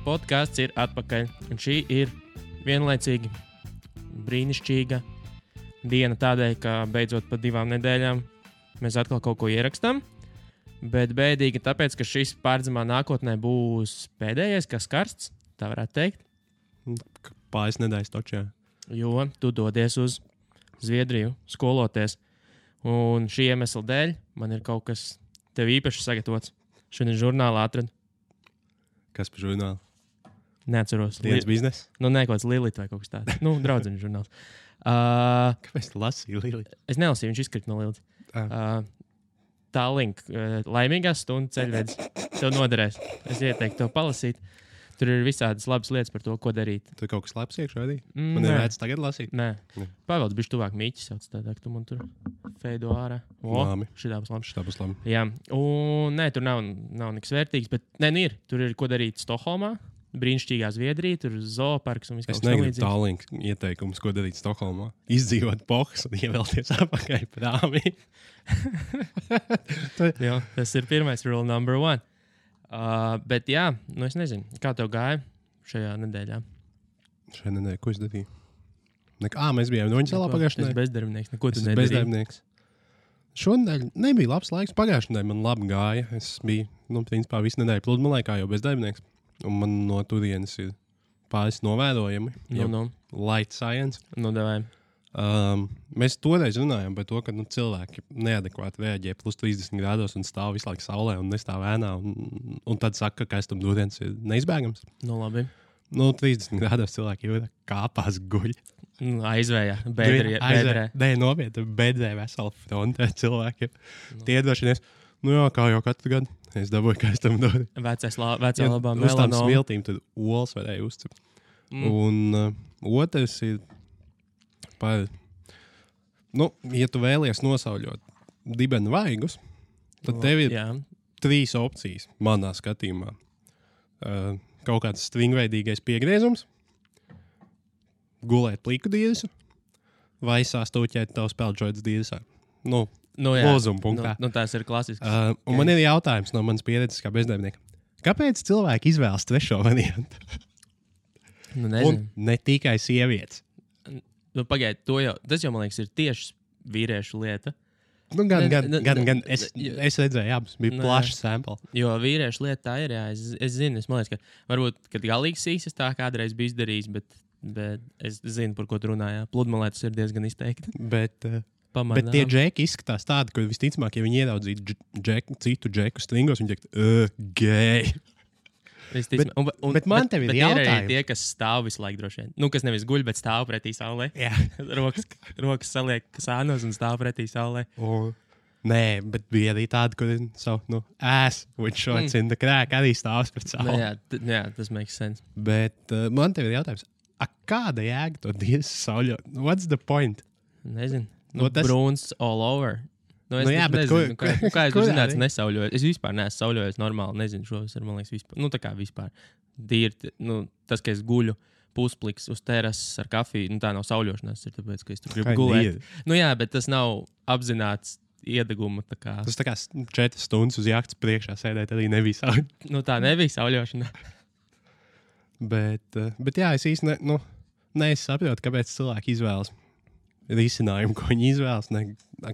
podkāsts ir atpakaļ. Un šī ir vienlaicīgi brīnišķīga diena tādēļ, ka beidzot pa 2 nedēļām mēs atkal kaut ko ierakstām. Bet bēdīgi tāpēc, ka šis pārdzimā nākotnē būs pēdējais, kas karsts, tā varētu teikt. Pāris nedēļas točā. Jo tu dodies uz Zviedriju skoloties. Un šī iemesla dēļ man ir kaut kas tev īpaši sagatavots. Šodien žurnālā atradu. Kas par žurnālu? Neatceros. Dienas biznesa? Nu, nē, kaut kāds Lilita vai kaut kas tāds. Nu, draudzeņu žurnāls. Kāpēc tu lasīji Lilita? Es nelasīju, viņš izkrita no Lilitas. Tālink, laimīgās stundas ceļvedis. Tev noderēs. Es ieteiktu tev palasīt. Tur ir visādas labas lietas par to, ko darīt. Tur kaut kas labs iekšā arī? Man ir vērts tagad lasīt? Nē. Pavēlts bišķi tuvāk Mīķis sauc tādā, ka tu man tur feido ārā. Labi. Šitā būs labi. Šitā būs labi. Jā. Un nē, tur nav nekas vērtīgs, bet nē, nu ir. Tur ir ko darīt Stokholmā. Brīnišķīgā Zviedrija, tur zooparks un viss kaut kas tamlīdzīgs. Es negribu tālink ieteikumus, ko darīt Stokholmā. Izdzīvot pohas un ievelties apakaļ prāmī. Jā, tas ir pirmais rule number 1. Bet jā, nu es nezinu, kā tev gāja šajā nedēļā? Šajā nedēļā, ko es darīju? Mēs bijām Noņasalā pagājušajā nedēļā. Es bezdarbnieks, neko tu nedarīji. Bezdarbnieks. Šonadēļ nebija labs laiks, pagājušajā nedēļā man labi gāja. Es biju, principā, visu nedēļu pludmalē, kā jau bezdarbnieks. Un man no turienes ir pāris novērojami. Light science. Mēs toreiz runājām par to, ka cilvēki neadekvāti reaģē plus 30 grādos un stāv visu laiku saulē un nestāv ēnā. Un tad saka, ka kaistam dūriens ir neizbēgams. Nu, labi. 30 grādos cilvēki jau kāpās guļ. Aizvējā, bedrē. Nē, nopietni, bedrē vesela frontē cilvēkiem. Tie droši vien, kā jau katru gadu. Es dabūju kaistam dūrienu. Vecā labā melanoma. Uz tām smiltīm tad olas varēja uzcept. Un otrs ir par, ja tu vēlies nosauļot dibenu vaigus, tad tev ir 3 opcijas manā skatījumā. Kaut kāds stringveidīgais piegriezums, gulēt pliku dīresu vai sāstūķēt tavu speldžoidas dīresā. Lozuma punktā. Tās ir klasisks. Un man ir jautājums no manas pieredzes kā bezdarbnieka. Kāpēc cilvēki izvēlas trešo variantu? Un ne tikai sievietes. Pagaid, tas jau, man liekas, ir tieši vīriešu lieta. Gan. Es redzēju, abas bija plašs sample. Jo vīriešu lieta tā ir, jā. Es zinu, man liekas, ka varbūt, kad galīgi sīsas tā kādreiz bija izdarījis, bet es zinu, par ko tu runājā. Pludmalē tas ir diezgan izteikti. Bet tie džeki izskatās tādi, ka visticamāk, ja viņi ieraudzītu citu džeku stringos, viņi teikt, gej. Bet man tev ir jautājums. Ir arī tie, kas stāv visu laiku droši vien. Kas nevis guļ, bet stāv pretī saulē. Jā. rokas saliek sānos un stāv pretī saulē. Nē, bet bija arī tādi, kur savu ass with shorts in the crack arī stāvs pret sauli. Jā, tas makes sense. Bet man tev ir jautājums. Kāda jēga to dīres sauļot? What's the point? Nezinu. Brūns all over. Es nezinu, kā es zinātu, nesauļoju. Es vispār neesmu sauļojis normāli. Nezinu, šos ir, man liekas, vispār. Tā kā vispār. Tas, ka es guļu puspliks uz terases ar kafiju, tā nav sauļošanās. Ir tāpēc, ka es tur gribu gulēt. Jā, bet tas nav apzināts iedeguma. Tas tā kā 4 stundas uz jahtas priekšā sēdēt arī nebija sauļošana. Tā nebija sauļošana. Bet jā, es īsti nesaprotu, kāpēc cilvēki izvēlas risinājumu, ko viņi izvēlas,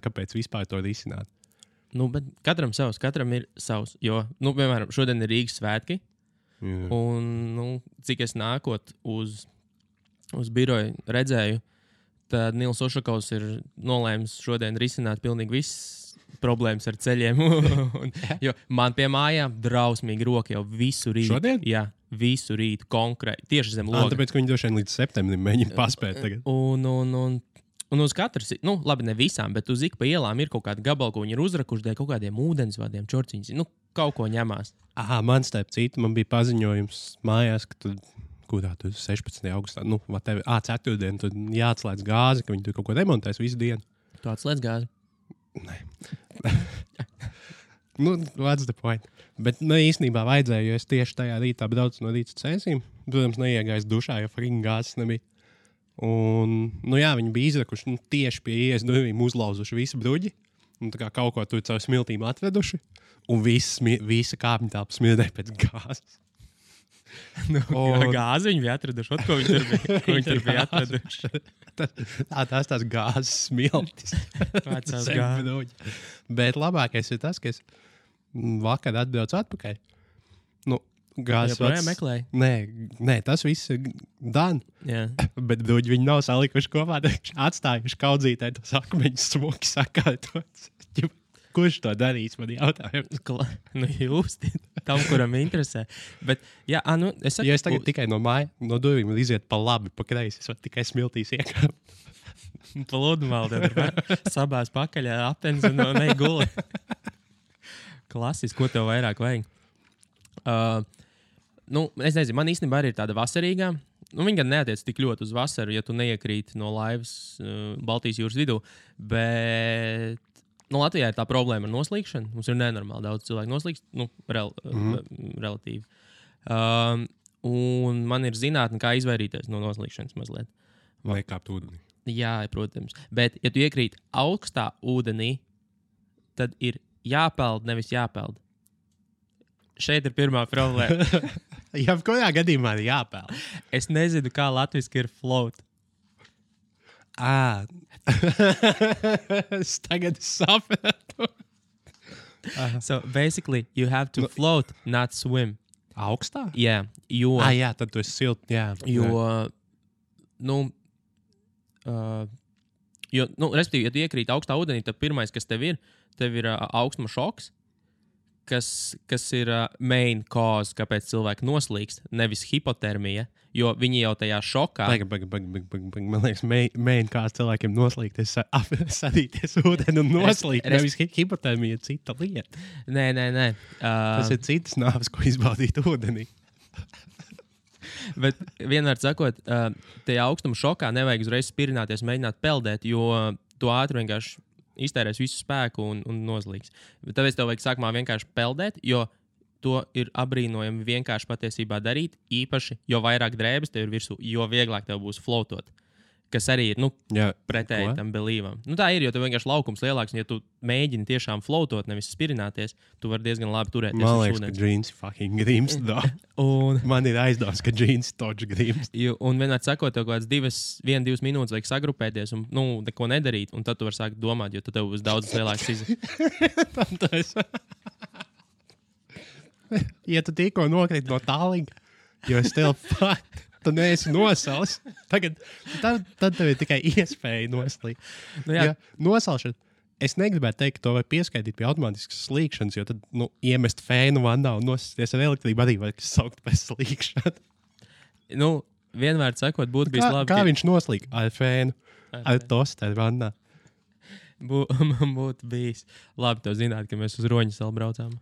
kāpēc vispār to risināt. Bet katram savs, katram ir savs. Jo, piemēram, šodien ir Rīgas svētki. Jā. Un, cik es nākot uz biroju redzēju, tad Nils Ošakovs ir nolēmis šodien risināt pilnīgi visas problēmas ar ceļiem. Jo man pie mājām drausmīgi roka jau visu rītu. Šodien? Jā, visu rītu konkrēti. Tieši zem loga. Tāpēc, ka viņi droši vien līdz septembrim mēģina paspēt tagad. Un uz katras, labi, ne visām, bet uz ik pa ielām ir kaut kāda gabala, ko viņi ir uzrakuši dēļ kaut kādiem ūdensvadiem, čorciņas. Kaut ko ņemās. Man starp citu, man bija paziņojums mājās, ka kurā tur 16. augustā, ceturtdien, tur jāatslēdz gāzi, ka viņi tur kaut ko remontēs visu dienu. Tu atslēdz gāzi? Nē. What's the point? Bet īstenībā vajadzēja, jo es tieši tajā rītā braucu no rīta cēsīm. Protams, neiegājis dušā, jo frīna gāzes nebija. Un, viņi bija izrakuši tieši pie ieejas durvīm, uzlauzuši visu bruģi. Un tā kā kaut ko tur caur smiltīm atveduši. Un visa kāpņu telpa smirdēja pēc gāzes. Gāzi viņi bija atraduši. Ko viņi tur bija atraduši? Tās gāzes smiltis. Vecās gāzes. Bet labākais ir tas, ka es vakar atbraucu atpakaļ. Gāzes meklēja? Nē, tas viss ir done. Yeah. Bet viņi nav salikuši kopā. Atstājuši kaudzītē tos akmeņus smuki sakārtots. Kurš to darīs, man jautājums? Jūs, tam, kuram interesē. Bet, jā, es saku... Ja es tagad tikai no durvīm iziet pa labi, pa kreisi, es varu tikai smiltīs iekāpt. Pa lodumāli tad sabās pakaļ apens un neguli. Klasiski, ko tev vairāk vajag? Es nezinu, man īstenībā arī ir tāda vasarīgā. Viņa gan neatiec tik ļoti uz vasaru, ja tu neiekrīti no laivas Baltijas jūras vidū, bet Latvijā ir tā problēma ar noslīkšanu. Mums ir nenormāli daudz cilvēku noslīkst, relatīvi. Un man ir zinātne, kā izvairīties no noslīkšanas mazliet. Vai kāpt ūdenī? Jā, protams. Bet, ja tu iekrīt augstā ūdenī, tad ir jāpeld, nevis jāpeld. Šeit ir pirmā problēma. Jā, kurā gadījumā ir jāpeld? Es nezinu, kā latviski ir float. Es tagad sapratu. So, basically, you have to float, not swim. Augstā? Jā, jo... Jā, tad tu esi silt, jā. Respektīvi, ja tu iekrīt augstā ūdenī, tad pirmais, kas tev ir augstuma šoks, kas ir main cause, kāpēc cilvēki noslīkst, nevis hipotermija, jo viņi jau tajā šokā... Man liekas, main cause cilvēkiem noslīkt, sadīties ūdeni un noslīkt, nevis hipotermija ir cita lieta. Nē. Tas ir citas nāves, ko izbaudīt ūdenī. Bet vienmēr sakot, tajā augstuma šokā nevajag uzreiz spirināties, mēģināt peldēt, jo tu ātri vienkārši iztērēs visu spēku un noslīgs. Tāpēc tev vajag sākumā vienkārši peldēt, jo to ir abrīnojami vienkārši patiesībā darīt. Īpaši, jo vairāk drēbes tev ir virsū, jo vieglāk tev būs floatot. Kas arī ir pretēji tam belīvam. Tā ir, jo tev vienkārši laukums lielāks, un ja tu mēģini tiešām floatot, nevis spirināties, tu vari diezgan labi turēties. Man liekas, ka džīns fucking grims. Man ir aizdoms, ka džīns toč grims. Un vienmēr sakot, tev kaut kāds 1-2 minūtes vajag sagrupēties un neko nedarīt, un tad tu vari sākt domāt, jo tad tev būs daudz lielāks izdevies. Ja tu tikko nokrīt no tālīga, jo es tev tu neesi nosalis, tad tev ir tikai iespēja noslīgt. Nosalšana. Es negribētu teikt, ka to var pieskaitīt pie automātiskas slīkšanas, jo tad iemest fēnu vandā un nosisties ar elektrību arī var saukt par slīkšanu. Vienmēr sakot, būtu bijis labi. Kā viņš noslīk ar fēnu, ar tosteru vandā? Man būtu bijis labi to zināt, ka mēs uz Roņu salu braucām.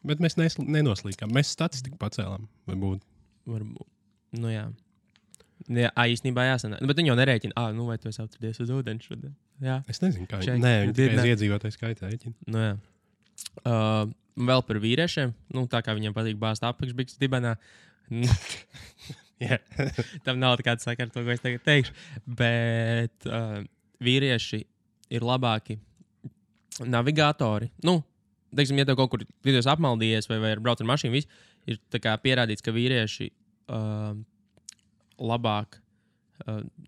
Bet mēs nenoslīkām. Mēs statistiku pacēlām. Varbūt. Jā. Īstenībā jāsanāk. Bet viņi jau nerēķina. Vai tu esi atradies uz ūdeni šodien? Jā. Es nezinu, kā viņi. Viņi tikai iedzīvotāju skaitā rēķina. Jā. Vēl par vīriešiem. Tā kā viņiem patīk bāzt apakšbiks dibenā. Tam nav tāda sakara to, ko es tagad teikšu. Bet vīrieši ir labāki navigatori. Teiksim, ja tev kaut kur vidos apmaldījies vai brauc ar mašīnu, ir pierādīts, ka vīrieši labāk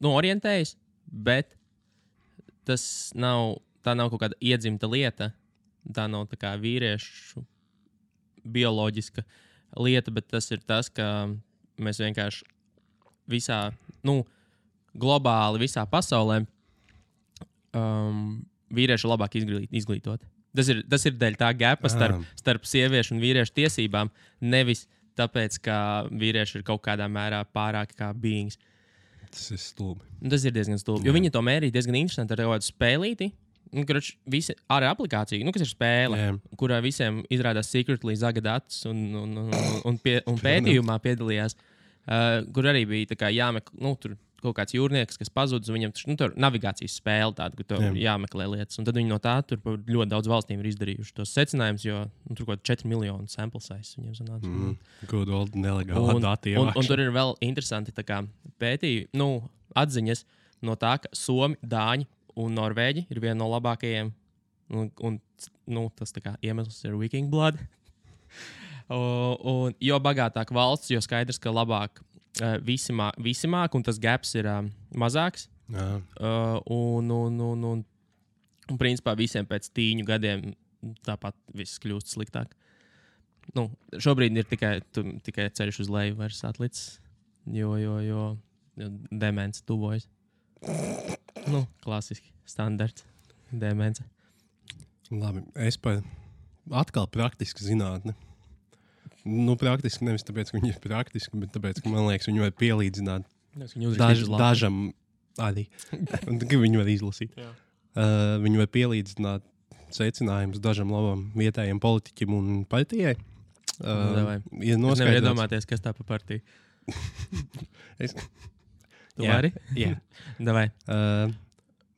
orientējas, bet tā nav kaut kāda iedzimta lieta. Tā nav tā kā vīriešu bioloģiska lieta, bet tas ir tas, ka mēs vienkārši visā, globāli visā pasaulē vīrieši labāk izglītot. Tas ir dēļ tā gapa starp sieviešu un vīriešu tiesībām, nevis tāpēc, ka vīrieši ir kaut kādā mērā pārāki kā beings. Tas ir stulbi. Tas ir diezgan stulbi, jo viņi to mērīja diezgan interesanti ar kādu spēlīti. Visi ar aplikāciju, kas ir spēle, kurā visiem izrādās secretly zaga datus un pētījumā piedalījās, kur arī bija jāmeklē, tur kaut kāds jūrnieks, kas pazudis, viņam tur navigācijas spēle tāda, kur tur jāmeklē lietas. Un tad viņi no tā tur ļoti daudz valstīm ir izdarījuši tos secinājumus, jo tur kaut 4 miljonu sample size viņiem sanāca. Good old nelegālā data ievākšana. Un tur ir vēl interesanti pētījumi, atziņas no tā, ka Somi, Dāņi un Norvēģi ir viena no labākajiem. Un tas iemesls ir Viking Blood. Un jo bagātāk valsts, jo skaidrs, ka labāk visi māk, un tas gaps ir mazāks. Un principā visiem pēc 10 gadiem tāpat viss kļūst sliktāk. Nu, šobrīd ir tikai ceļš uz leju vairs atlicis, jo demence tuvojas. Nu, klasiski, standarts, demence. Labi, es atkal praktiski zinātne. Nu, praktiski nevis tāpēc, ka viņi ir praktiski, bet tāpēc, ka man liekas, viņi var pielīdzināt dažam arī. Un tikai viņi var izlasīt. Viņi var pielīdzināt secinājumus dažam labam vietējiem politiķim un partijai. Es nevaru iedomāties, kas tā pa partiju. Tu vari? Jā. Davai.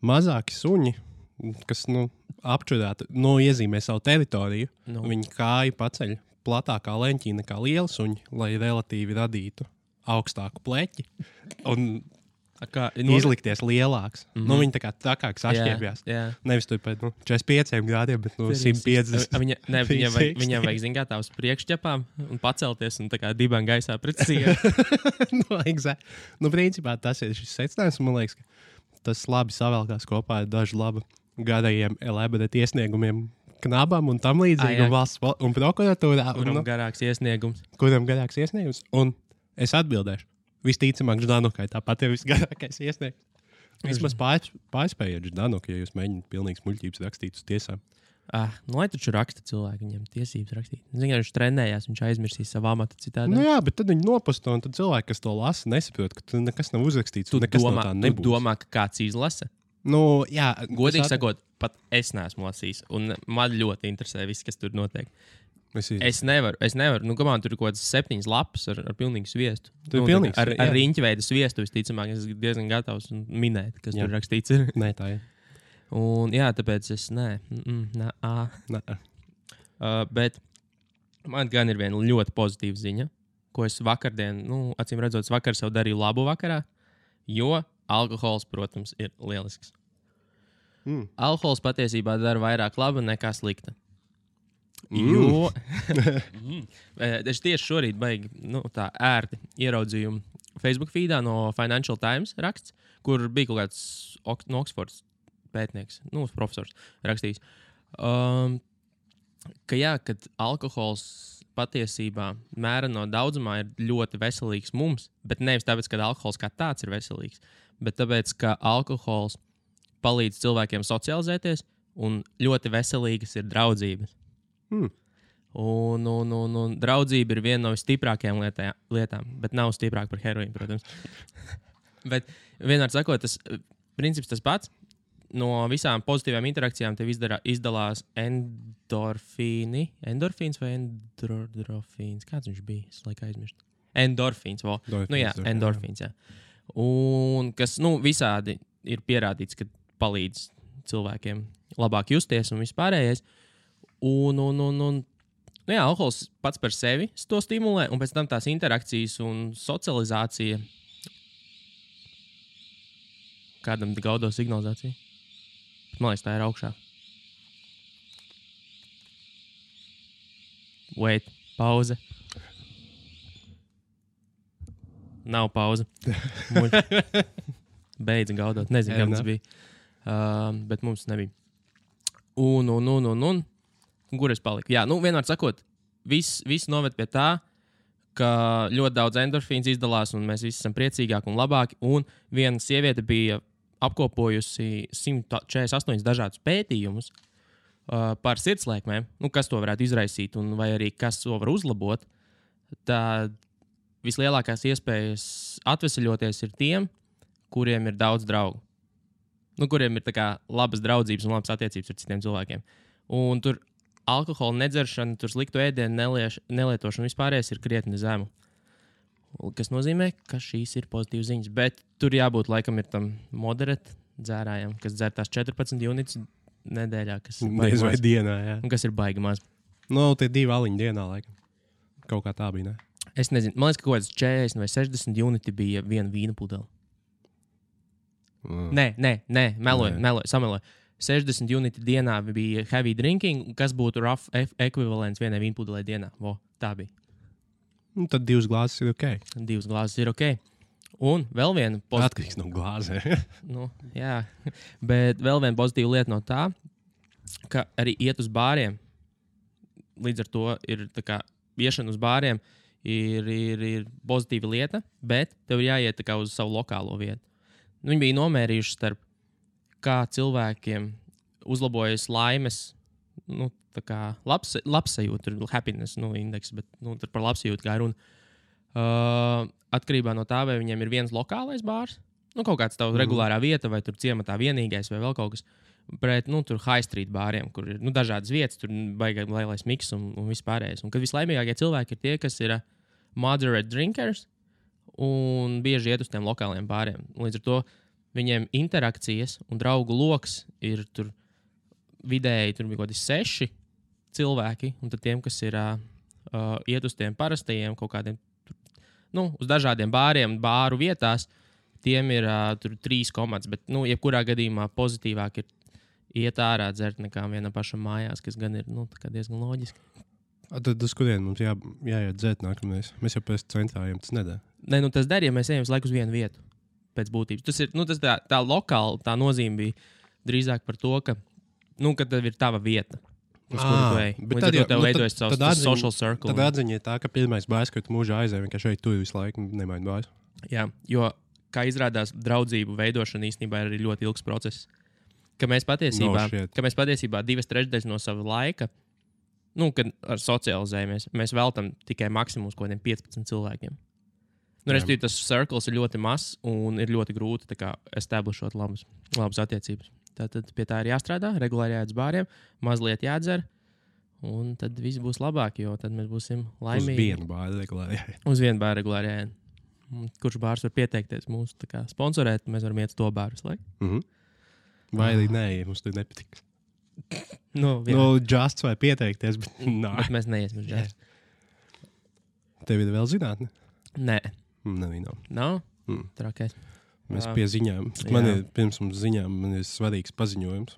Mazāki suņi, kas apčurētu, iezīmē savu teritoriju, viņi kāju paceļ platākā leņķī nekā liela suņi, lai relatīvi radītu augstāku pleķi un izlikties lielāks. Viņi tā kā trakāks atšķiepjās. Nevis tur pēc 45 grādiem, bet 150. Viņam vajag zināt tās priekšķepām un pacelties un tā kā dibām gaisā pret sienu. Principā tas ir šis secinājums. Man liekas, ka tas labi savēlkās kopā ar dažu labu garajiem elaborēt iesniegumiem knabam un tam līdzīgi un valsts un prokuratūrā. Kuram garāks iesniegums. Un es atbildēšu. Visticamāk, Ždanukai tāpat ir visgarākais iesniegums. Vismaz pārspējiet Ždanuku, ja jūs mēģināt pilnīgas muļķības rakstīt uz tiesām. Lai taču raksta cilvēki, viņam tiesības rakstīt. Ziniet, viņš trenējās, viņš aizmirsīs savu amatu citādi. Jā, bet tad viņi noposto, un tad cilvēki, kas to lasa, nesaprot, ka nekas nav uzrakstīts. Tu domā, ka kāds izlasa? Jā. Godīgi sakot, pat es neesmu lasījis, un man ļoti interesē viss, kas tur notiek. Es nevaru. Kamēr tur ir kaut kāds 7 lapas ar pilnīgu sviestu. Ar riņķveida sviestu, visticamāk, es esmu diezgan gatavs minēt, kas tur rakstīts ir. Nē, tā ir. Un jā, tāpēc es bet man gan ir viena ļoti pozitīva ziņa, ko es vakardien, acīm redzot, vakar sev darīju labu vakarā, jo alkohols, protams, ir lielisks. Alkohols patiesībā dara vairāk laba nekā slikta. Jo es tieši šorīt baigi tā ērti ieraudzīju Facebook feedā no Financial Times raksts, kur bija kaut kāds no Oxfords pētnieks, profesors rakstījis, kad alkohols patiesībā mēra no daudzumā ir ļoti veselīgs mums, bet nevis tāpēc, ka alkohols kā tāds ir veselīgs, bet tāpēc, ka alkohols palīdz cilvēkiem socializēties un ļoti veselīgas ir draudzības. Un draudzība ir viena no visstiprākajām lietām, bet nav stiprāka par heroīnu, protams. Bet vienmēr sakot, tas princips tas pats. No visām pozitīvām interakcijām tev izdalās endorfīni. Endorfīns vai endorfīns? Kāds viņš bija? Es laikā aizmirstu. Endorfīns. Endorfīns, jā. Un kas, visādi ir pierādīts, ka palīdz cilvēkiem labāk justies un vispārējais. Alkohols pats par sevi to stimulē, un pēc tam tās interakcijas un socializācija. Kādam gaudo signalizācija? Man liekas, tā ir augšā. Wait, pauze. Nav pauze. Beidza gaudot. Nezinu, kam tas bija. Bet mums nebija. Un. Kur es paliku? Jā, vienmēr sakot, viss noved pie tā, ka ļoti daudz endorfīns izdalās, un mēs visi esam priecīgāki un labāki. Un viena sieviete bija apkopojusi 148 dažādus pētījumus par sirdslēkmēm, kas to varētu izraisīt, un vai arī kas to var uzlabot. Tad vislielākās iespējas atveseļoties ir tiem, kuriem ir daudz draugu. Kuriem ir tā kā labas draudzības un labas attiecības ar citiem cilvēkiem. Un tur alkohola nedzeršana, tur sliktu ēdienu nelietošana vispārējais ir krietni zemu. Kas nozīmē, ka šīs ir pozitīvas ziņas. Bet tur jābūt laikam ir tam moderēt dzērājam, kas dzer tās 14 unitus nedēļā. Nezinu, vai dienā, jā. Un kas ir baigi maz. Tie 2 aliņi dienā, laikam. Kaut kā tā bija, ne? Es nezinu. Man liekas, ka kaut kāds 40 vai 60 uniti bija viena vīna pudele. Nē, meloju, sameloju. 60 uniti dienā bija heavy drinking, kas būtu rough ekvivalents vienai vīnpudelē dienā. Tā bija. Un tad 2 glāzes ir ok. 2 glāzes ir ok. Un vēl viena atkarīgs no glāzē. Jā, bet vēl viena pozitīva lieta no tā, ka arī iet uz bāriem. Līdz ar to ir tā kā iešana uz bāriem ir pozitīva lieta, bet tev ir jāiet tā kā uz savu lokālo vietu. Viņi bija nomērījuši starp kā cilvēkiem uzlabojas laimes, tā kā labsajūta, happiness, indeks, bet tur par labsajūtu kā runa. Atkarībā no tā, vai viņiem ir viens lokālais bārs, kaut kāds tavs regulārā vieta, vai tur ciematā vienīgais, vai vēl kaut kas. Pret tur high street bāriem, kur ir dažādas vietas, tur baigās lielais miks un vispārējais. Un kad vislaimīgākie cilvēki ir tie, kas ir moderate drinkers un bieži iet uz tiem lokāliem bāriem. Līdz ar to viņiem interakcijas un draugu loks ir tur vidēji, tur bija kaut kādi 6 cilvēki, un tad tiem, kas ir iet uz tiem parastajiem kaut kādiem, uz dažādiem bāriem, bāru vietās, tiem ir tur 3 komandas, bet, jebkurā gadījumā pozitīvāk ir iet ārā dzert nekā vienam pašam mājās, kas gan ir, diezgan loģiski. Tad uz kurien mums jāiet dzert nākamreiz? Mēs jau pēc centrājiem tas nedara. Nē, tas der, ja mēs ejam uz laiku uz vienu vietu pēc būtības. Tas ir, tas tā lokāli, tā nozīme bija drīzāk par to, ka, ka tev ir tava vieta. Uz kuru tu ej. Līdz ar to tev veidojas savs social circle. Tad atziņa ir tā, ka pirmais bārs, ka tu mūžā aizēji, ka šeit tu visu laiku nemaini bārs. Jā, jo, kā izrādās, draudzību veidošana īstenībā ir ļoti ilgs process. Ka mēs patiesībā 2/3 no sava laika, kad socializējamies, mēs veltam tikai maksimums kaut kādiem 15 cilvēkiem. Respektīvi, tas cirkls ir ļoti mazs un ir ļoti grūti establishot labas attiecības. Tātad pie tā ir jāstrādā, regulāri jāiet uz bāriem, mazliet jādzer, un tad viss būs labāk, jo tad mēs būsim laimīgi. Uz vienu bāru regulāri jāiet. Uz vienu bāru regulāri jāiet. Kurš bārs var pieteikties mūs sponsorēt, mēs varam iet uz to bāru. Vai arī nē, ja mums tur nepatīk. Justs vai pieteikties, bet bet mēs neiesim uz Justs. Tev ir vēl zinātne? Nē. Nav? Trakais. Mēs pie ziņām. Pirms mums ziņām man ir svarīgs paziņojums.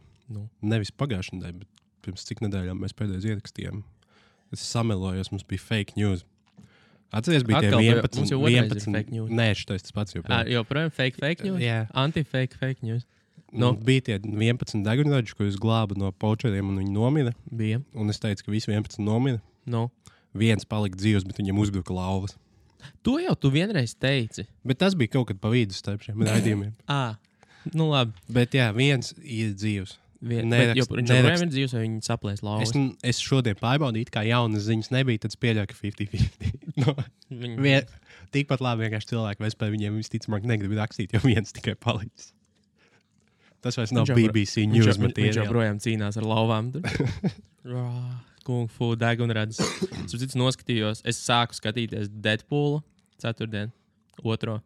Nevis pagājušajā nedēļā, bet pirms cik nedēļām mēs pēdējais ierakstījām. Es samelojos, mums bija fake news. Atceries, bija tie 11 fake news. Nē, šitais tas pats joprojām. Joprojām fake news? Jā. Anti-fake news. Bija tie 11 degunraģi, ko es glābu no počeriem, un viņi nomira. Bija. Un es teicu, ka visi 11 nomira. Viens palika dzīvs, bet viņam uzbruka lauvas. To jau tu vienreiz teici. Bet tas bija kaut kad pa vidu starp šiem raidījumiem. Labi. Bet jā, viens ir dzīvs. Viņš joprojām ir dzīvs, vai viņi saplēs lauvas? Es šodien pārbaudīju, kā jaunas ziņas nebija, tad es pieļauju, ka 50-50. Tikpat labi vienkārši cilvēki vairs par viņiem visticamāk negrib rakstīt, jo viens tikai palicis. Tas vairs nav BBC news materiāli. Viņš joprojām cīnās ar lauvām. Kung fu degunradis. Es noskatījos, es sāku skatīties Deadpoolu 4. 2.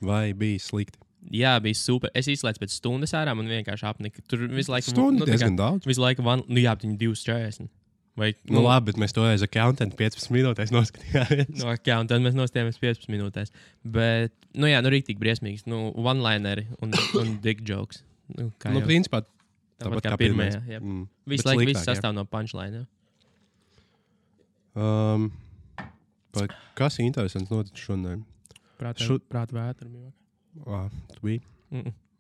Vai bija slikti? Jā, bija super. Es izslēdzu pēc stundas ārā, man vienkārši apnika. Tur visu laiku... Stundu diezgan daudz. Visu laiku, bet viņi 2:40. Vai, labi, bet mēs toreiz accountant 15 minūtēs noskatījāmies. Accountant mēs nostājāmies 15 minūtēs. Bet, rīktīgi briesmīgs. One-lineri un dick jokes. Principā tāpat kā pirmajā. Visu laiku viss sastāv no punchline. Kas interesants notic šodien? Prāta vētra. Tu biji?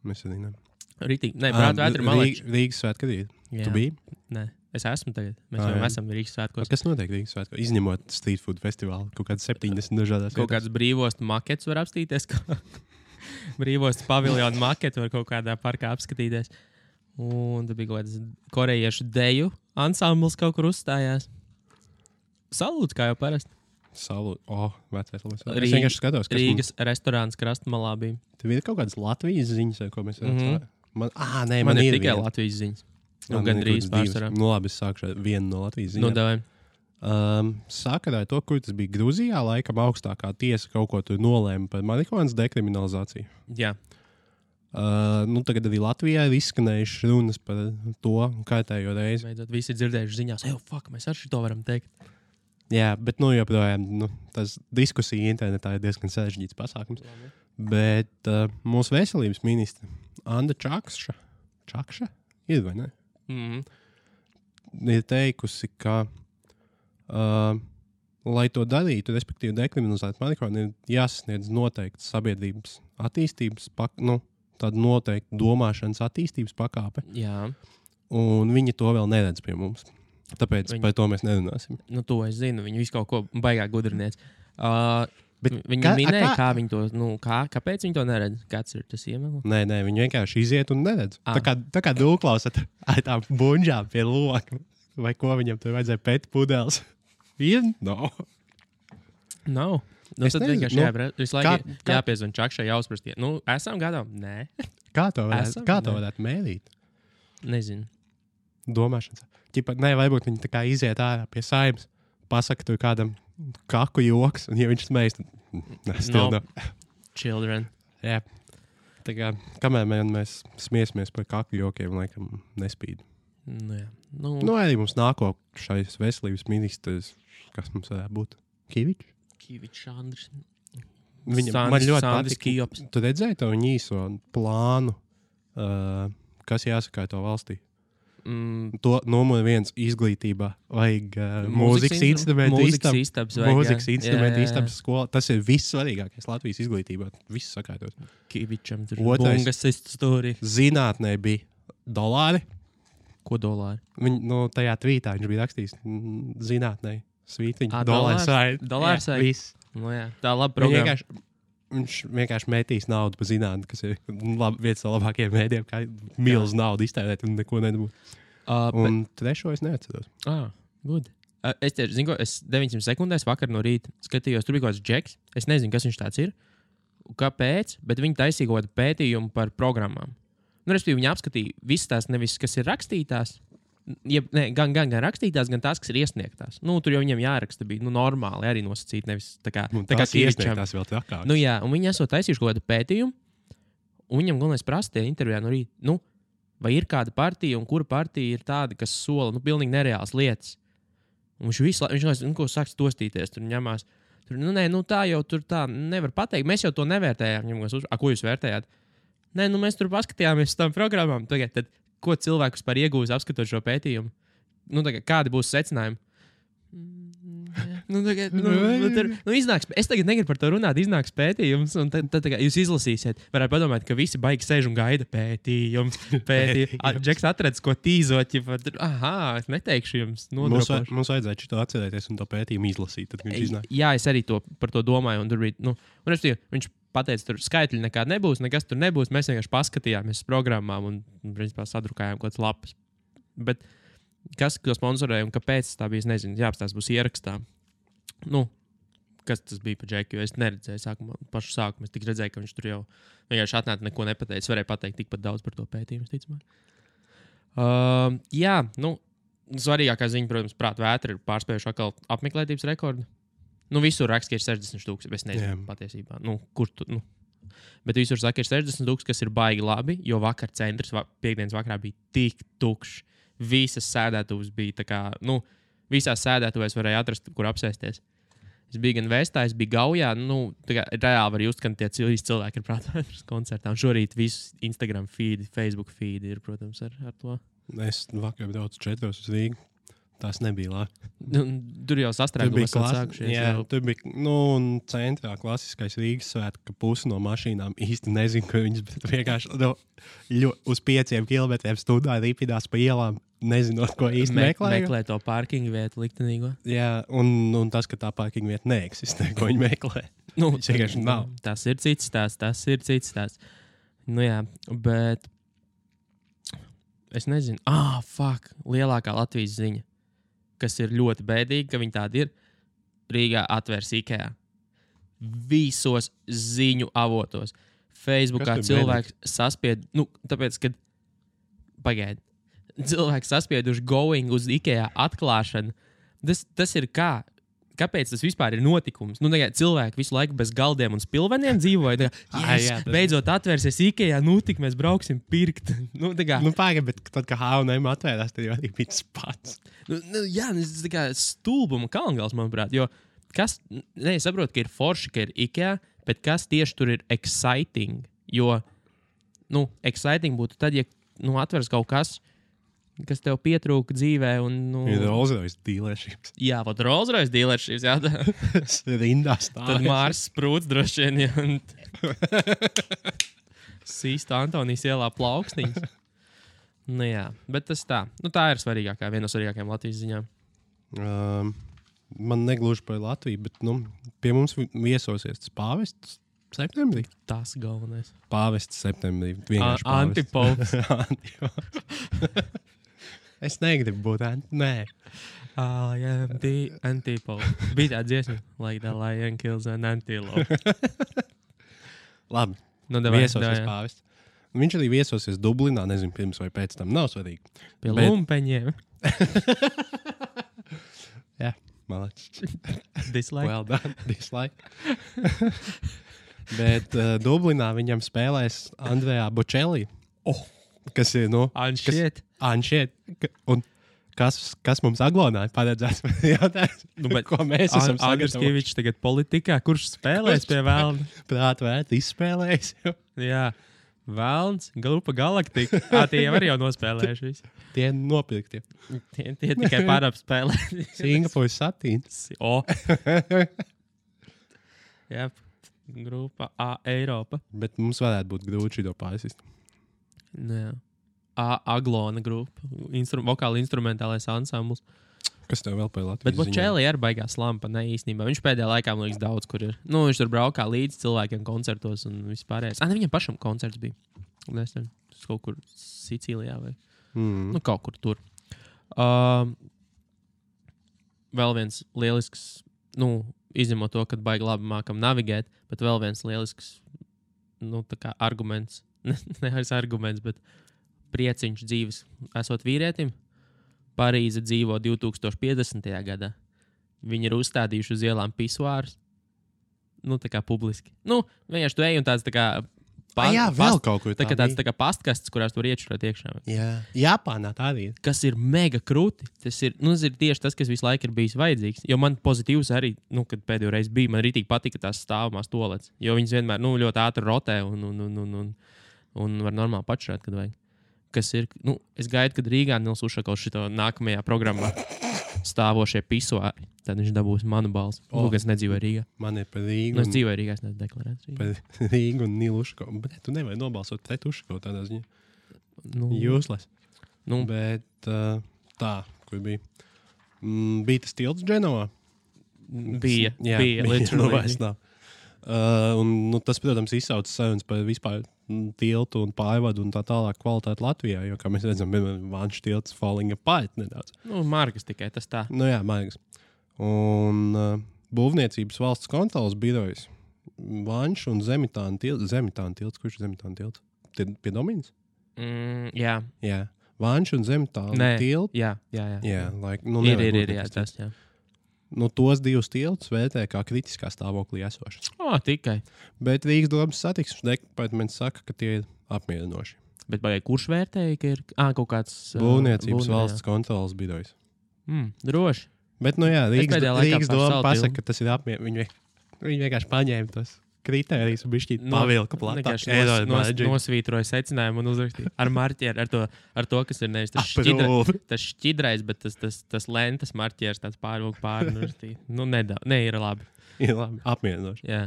Mēs arī ne. Rītīgi. Nē, prāta vētra man liekas. Rīgas svētku rīt. Tu biji? Nē, es esmu tagad. Mēs jau esam Rīgas svētkos. Kas notiek Rīgas svētkos? Izņemot street food festivālu, kaut kāds 70 dažādās vietās. Kaut kāds brīvostu makets var apstīties. Brīvostu paviljonu maketu var kaut kādā parkā apskatīties. Un tad bija kaut kāds korejiešu deju ansambls kaut kur uzstājās. Salūts, kā jau parasti. Salūts. Vecais. Es vienkārši skatos, kas Rīgas restorāns Krastmalā bija. Tev ir kaut kādas Latvijas ziņas, ko mēs redzam? Man ir tikai Latvijas ziņas. Gandrīz pārsvarā. Labi, es sākšu vienu no Latvijas ziņām. Sakarā to, kur tas bija Gruzijā, laikam augstākā tiesa kaut ko tur nolēma par marihuānas dekriminalizāciju. Jā. Tagad arī Latvijā ir izskanējušas runas par to kārtējo reizi. Beidzot, visi dzirdējuši ziņās, mēs ar šito varam teikt. Jā, bet joprojām tas diskusija internetā ir diezgan sarežģīts pasākums. Bet mūsu veselības ministra Anda Čakša, Ir vai ne? Ir teikusi, ka, lai to darītu, respektīvi dekriminalizēt marihuānu, ir jāsasniedz noteikts sabiedrības attīstības, tāda noteikta domāšanas attīstības pakāpe. Jā. Un viņi to vēl neredz pie mums. Tāpēc par to mēs nerunāsim. Nu, to es zinu. Viņi visu kaut ko baigā gudriniec. Viņi minēja, kā viņi to, kāpēc viņi to neredz? Kāds ir tas iemesls? Nē, viņi vienkārši iziet un neredz. Tā kā dūklausat ar tām buņģām pie loka. Vai ko viņam tur vajadzēja pēt pudeles? No. Nav. Nu, tad vienkārši visu laiku jāpiezvan čakšai, jāuzprastie. Esam gatavi? Nē. Kā to varētu mērīt? Nezinu. Domāšanas. Varbūt viņi tā kā iziet ārā pie saimnes, pasaka tur kādam kaku joks, un ja viņš smējas, tad Children. Jā. Tā kā, kamēr mēs smiesimies par kaku jokiem, laikam nespīd. Arī mums nāko šais veselības ministrs, kas mums varētu būt? Kivičs Andris. Man ļoti patīk. Tu redzēji to viņa īso plānu, kas jāsaka to valstī? To numur 1 izglītībā vajag mūzikas instrumentu istabas skola. Tas ir vissvarīgākais Latvijas izglītībā. Viss sakārtot. Kivičam tur bungas istorija. Zinātnē bija dolāri. Ko dolāri? Tajā tvītā viņš bija rakstījis zinātnē. Svītiņa. Dolārs saik. Viss. Tā laba programma. Viņš vienkārši metīs naudu par zinātni, kas ir viens no labākajiem mēdiem, kā milz naudu iztērēt un neko nedabūt. Un trešo es neatceros. Good. Es tieši zinu, es 900 sekundēs vakar no rīta skatījos, tur bija kaut kāds džeks. Es nezinu, kas viņš tāds ir. Kāpēc, bet viņi taisīja kaut kādu pētījumu par programmām. Respektīvi, viņi apskatīja visas tās, nevis kas ir rakstītās, gan rakstītās, gan tās, kas ir iesniegtās. Tur jau viņiem jāraksta bija normāli arī nosacīt, nevis tā kā iesniegtās vēl trakāk. Un viņi esot taisījuši kaut kādu pētījumu, un viņam galvenais prasīja intervijā no rīta, vai ir kāda partija, un kura partija ir tāda, kas sola, pilnīgi nereāls lietas. Un viņš sāks tostīties, tur ņemās. Tā jau tur tā nevar pateikt, mēs jau to nevērtējām. Ko jūs vērtējāt? Mēs tur paskatījāmies uz tām programmām. Tad, ko cilvēkus par iegūst apskatot šo pētījumu? Kādi būs secinājumi? Iznāks, es tagad negribu par to runāt, iznāks pētījums, un tad jūs izlasīsiet. Varētu padomāt, ka visi baigi sēž un gaida pētījums. Džeks atradis, ko tīzot. Es neteikšu jums. Mums vajadzētu šito atcerēties un to pētījumu izlasīt. Tad viņš iznāk. Jā, es arī par to domāju. Un tur bija, viņš pateica, tur skaitļi nekādi nebūs, nekas tur nebūs. Mēs vienkārši paskatījāmies uz programmām un principā sadrukājām kaut kādas lapas. Bet kas to sponsorēja un kāpēc tā bija, es nezinu. Jā, tas būs ierakstā. Kas tas bija par Džeku, jo es neredzēju pašu sākumu. Es tik redzēju, ka viņš tur jau vienkārši atnāca, neko nepateica. Es varēju pateikt tikpat daudz par to pētījumu, ticamāk. Svarīgākā ziņa, protams, prāt vētra ir pārspējuši atkal apmeklētības rekordu. Visur raksta, ka ir 60,000. Es nezinu patiesībā. Kur tu? Bet visur saka, ir 60,000, kas ir baigi labi, jo vakar centrs piekdienas vakarā bija tik tukšs. Visas sēdētuves bija tā kā, visās sēdētuvēs varēja atrast, kur apsēsties. Es biju gan Vestā, es biju Gaujā, reāli var just, ka tie cilvēki ir prātvētras koncertā. Un šorīt visu Instagram feed, Facebook feed ir, protams, ar to. Es vakar braucu 4 uz Rīgu. Tas nebija labi. Tur jau sastrēgums sākušies. Jā, tur bija, un centrā klasiskais Rīgas svētki, ka pusi no mašīnām īsti nezinu, ka viņas vienkārši uz 5 kilometriem stundā ripinās pa ielām, nezinot, ko īsti meklē to parkingu vietu liktenīgo. Jā, un tas, ka tā parkingu vieta neeksistē, ko viņi meklē. Vienkārši nav. Tas ir cits stāsts. Jā, bet es nezinu. Lielākā Latvijas ziņa, kas ir ļoti bēdīgi, ka viņi tādi ir. Rīgā atvērs IKEA. Visos ziņu avotos. Facebookā cilvēks saspied, tāpēc, kad pagaidi. Cilvēks saspieduši going uz IKEA atklāšanu. Tas ir kā? Kāpēc tas vispār ir notikums? Cilvēki visu laiku bez galdiem un spilveniem dzīvoja. Beidzot atvērsies IKEA, tik mēs brauksim pirkt. Pagaidi, bet tad, kad H&M atvērās, tad jau arī bija tas pats. Tas tā kā stulbuma kalngals, manuprāt. Jo es saprotu, ka ir forši, ka ir IKEA, bet kas tieši tur ir exciting? Jo, exciting būtu tad, ja atveras kaut kas, kas tev pietrūka dzīvē. Un, ir Rolls-Royce dealerships. Jā, pat Rolls-Royce dealerships. Jā, rindā stāv. Tad Mārs Sprūts droši vien. Sīsta Antonijas ielā plauksniņas. Nu jā, bet tas tā. Nu tā ir svarīgākā, viena no svarīgākajām Latvijas ziņām. Man negluži par Latviju, bet pie mums viesosies tas pāvests septembrī. Tas galvenais. Pāvests septembrī. Antipops. Es negribu būt nē. I am the antipope. Bija tā dziesma. Like the lion kills an antelope. Labi. Nu, viesosies pāvests. Viņš arī viesosies Dublinā, nezinu, pirms vai pēc tam. Nav svarīgi. Pie lumpeņiem. Jā, malāc. Dislike. Well done. Dislike. Bet Dublinā viņam spēlēs Andrejā Bocelli. Kas ir, Anšiet. Un kas mums Aglonā ir paredzēts? Ko mēs esam sagatavojuši? Andrskievičs tagad politikā. Kurš spēlēs pie Velna? Prāt vērt izspēlējis. Jā. Velns, grupa Galaktika. Tie jau arī nospēlējuši visi. Tie nopirkti. Tie tikai pārapspēlē. Singapūras satīns. Jā, grupa Eiropa. Bet mums varētu būt grūti šito pārsist. Jā. Aglona grupa. Vokāli instrumentālais ansambls. Kas tev vēl par Latvijas Bet Bocelli ir baigās lampa, ne īstenībā. Viņš pēdējā laikā, man liekas, daudz kur ir. Viņš tur braukā līdz cilvēkiem koncertos un vispārējais. Viņam pašam koncerts bija. Nesen, kaut kur Sicīlijā vai kaut kur tur. Vēl viens lielisks, izņemot to, kad baigi labi mākam navigēt, bet vēl viens lielisks, tā kā arguments, nevis arguments, bet prieciņš dzīves esot vīrietim. Parīze dzīvo 2050. gadā. Viņi ir uzstādījuši uz ielām pisuārus. Tā kā publiski. Vienkārši tu ej un tāds tā kā... vēl kaut kur tā tāds tā kā pastkastes, kurās tu var iečurēt iekšā. Jā. Japānā tā arī. Kas ir mega krūti. Tas ir tieši tas, kas visu laiku ir bijis vajadzīgs. Jo man pozitīvs arī, kad pēdējo reizi bija, man rītīgi patika tās stāvamās tolets. Jo viņas vienmēr ļoti ātri rotē un var normāli pačurēt, kad vajag. Kas ir, es gaidu, kad Rīgā Nils Ušakovs šito nākamajā programmā stāvošie pisuāri. Tad viņš dabūs manu balsi. Es nedzīvoju Rīgā. Man ir par Rīgu. Es dzīvoju Rīgā, es neesmu deklarēts Rīgā. Par Rīgu un Nilu Ušakovu. Bet tu nevari nobalsot pret Ušakovu tādā ziņā. Jūsles. Bet tā, kur bija? Bija tas tilts Dženovā? Bija. Literally. Tas, protams, izsauc sarunas par vispār tiltu un pārvadu un tā tālāk kvalitāti Latvijā, jo, kā mēs redzam, Vanšu tilts falling apart nedaudz. Margas tikai, tas tā. Jā, margas. Un būvniecības valsts kontrolas birojas Vanšu un Zemitāna tilts. Kurš ir Zemitāna tilts? Pie Dominas? Jā. Vanšu un Zemitāna tilts? Jā. Ir, tas, jā. Tos divus tiltus vērtē kā kritiskā stāvoklī esošas. Tikai. Bet Rīgas domas satiksmes departaments saka, ka tie ir apmierinoši. Bet kurš vērtēja, ka ir kaut kāds... Būvniecības valsts kontrolas birojas. Droši. Bet, Rīgas doma pasaka, ka tas ir apmierinoši. Viņi vienkārši paņēma tos kritērijus un bišķīt pavilka platāk. Nosvītroja secinājumu un uzrakstīja ar marķieru, ar to, kas ir nevis tas šķidrais, bet tas lentes marķieris tāds pārvilka pāri. Ir labi. Ir labi, apmierinoši. Jā,